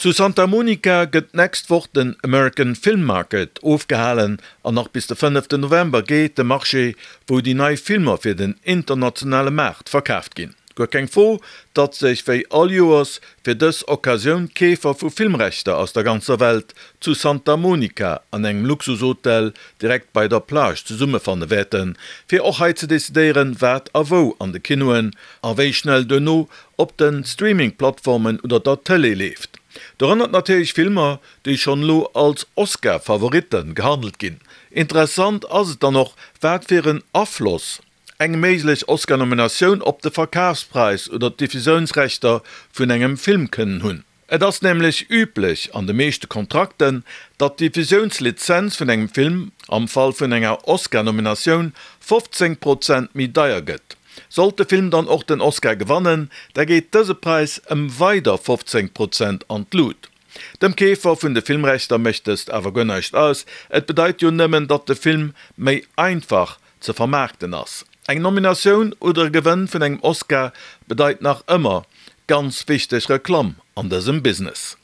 Zu Santa Monica gëtt d'nächst Woch den American Film Market ofgehalen an nach bis de fënneften November geet de Marché, wou déi nei Filmer fir den internationale Maart verkaaft ginn. Guer keng Fro, datt sech wéi all Joers fir dës Occasioun d'Keefer vu Filmrechter aus der ganzer Welt zu Santa Monica an engem Luxushotel direkt bei der Plage zesummefanne wäerten, fir och hei ze decidéieren, wat a wou an de Kinoen a wéi schnell duerno op de Streaming-Plattformen oder der Tëlee leeft. Dorënner natierlech Filmer, déi schonn elo als Oscar-Favoritte gehandelt ginn. Interessant ass et dann och, wat fir en Afloss eng méiglech Oscar-Nominatioun op de Verkafspräis oder d'Diffusiounsrechter vun engem Film kënnen hunn. Et ass nämlech üblech an de meeschte Kontrakten, datt d'Diffusiounslizenz vun engem Film am Fall vun enger Oscar-Nominatioun 15 Prozent méi deier gëtt. Sollt de Film dann och den Oscar gewannen, da geet dëse Präis ëm weider 15 Prozent an d'Lut. Dem Keefer vun de Filmrechter mécht dëst awer guer näischt aus, et bedeit jo nëmmen, datt de Film méi einfach ze vermaarkten ass. Eng Nominatioun oder e Gewënn vun engem Oscar bedeit nach ëmmer ganz wichteg Reklamm an dësem Business.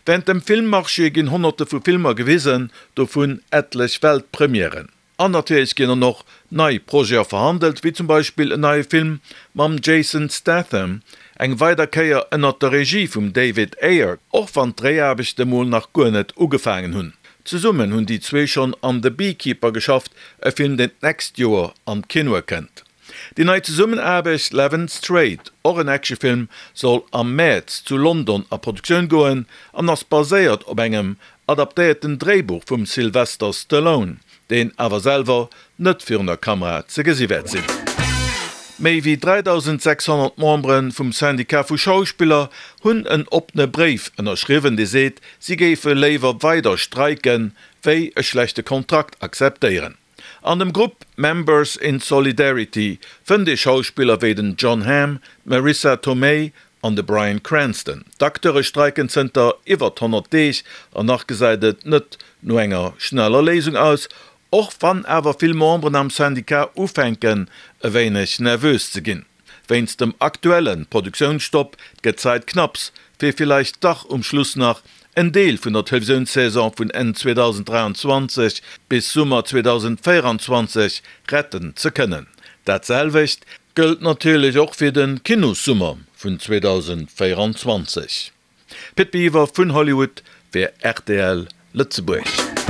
Wärend dem Filmmarché ginn honnerte vu Filmer gewisen, dovun etlech Weltpremièren. An natierlech ginn dann och nei Projete verhandelt, wéi zum Beispill en neie Film mam Jason Statham, eng weider Kéier ënnert der Regie vum David Ayer, och wann d'Dréiaarbechte mol nach guer net ugefaangen hunn. Zesummen hunn déi zwee schonn an The Beekeeper geschafft, e Film deen d'nächst Joer an d'Kinoe kënnt. Déi nei Zesummenaarbecht Levin Strait, och en Actionfilm, soll am Mäerz zu London a Produktioun goen an ass baséiert op engem adaptéierten Dréibuch vum Sylvester Stallone, deen awer selwer net virun der Kamera ze gesi wäert sinn. Méi wéi 3.600 Membere vum Syndicat vu Schauspiller hunn en oppene Bréif ënnerschriwwen, dee seet, si géife léiwer weider streiken, wéi e schlechte Kontrakt akzeptéieren. An dem Grupp Members in Solidarity fënnt ee Schauspiller wéi den Jon Hamm, d'Marisa Tomei an de Bryan Cranston. D'Acteure streiken zënter iwwert 100 Deeg an nach gesäit et net no enger schneller Léisung aus, och wann awer vill Memberen am Syndicat ufänken e wéineg nervös ze ginn. Wéinst dem aktuelle Produktiounsstopp gëtt d'Zäit knapps, fir villäicht dach um Schluss nach en Deel vun der Televisiounssaison vun Enn 2023 bis Summer 2024 retten ze kënnen. Dat selwecht gëllt natierlech och fir de Kinossummer vun 2024. Pit Biwer vun Hollywood fir rtl Lëtzebuerg.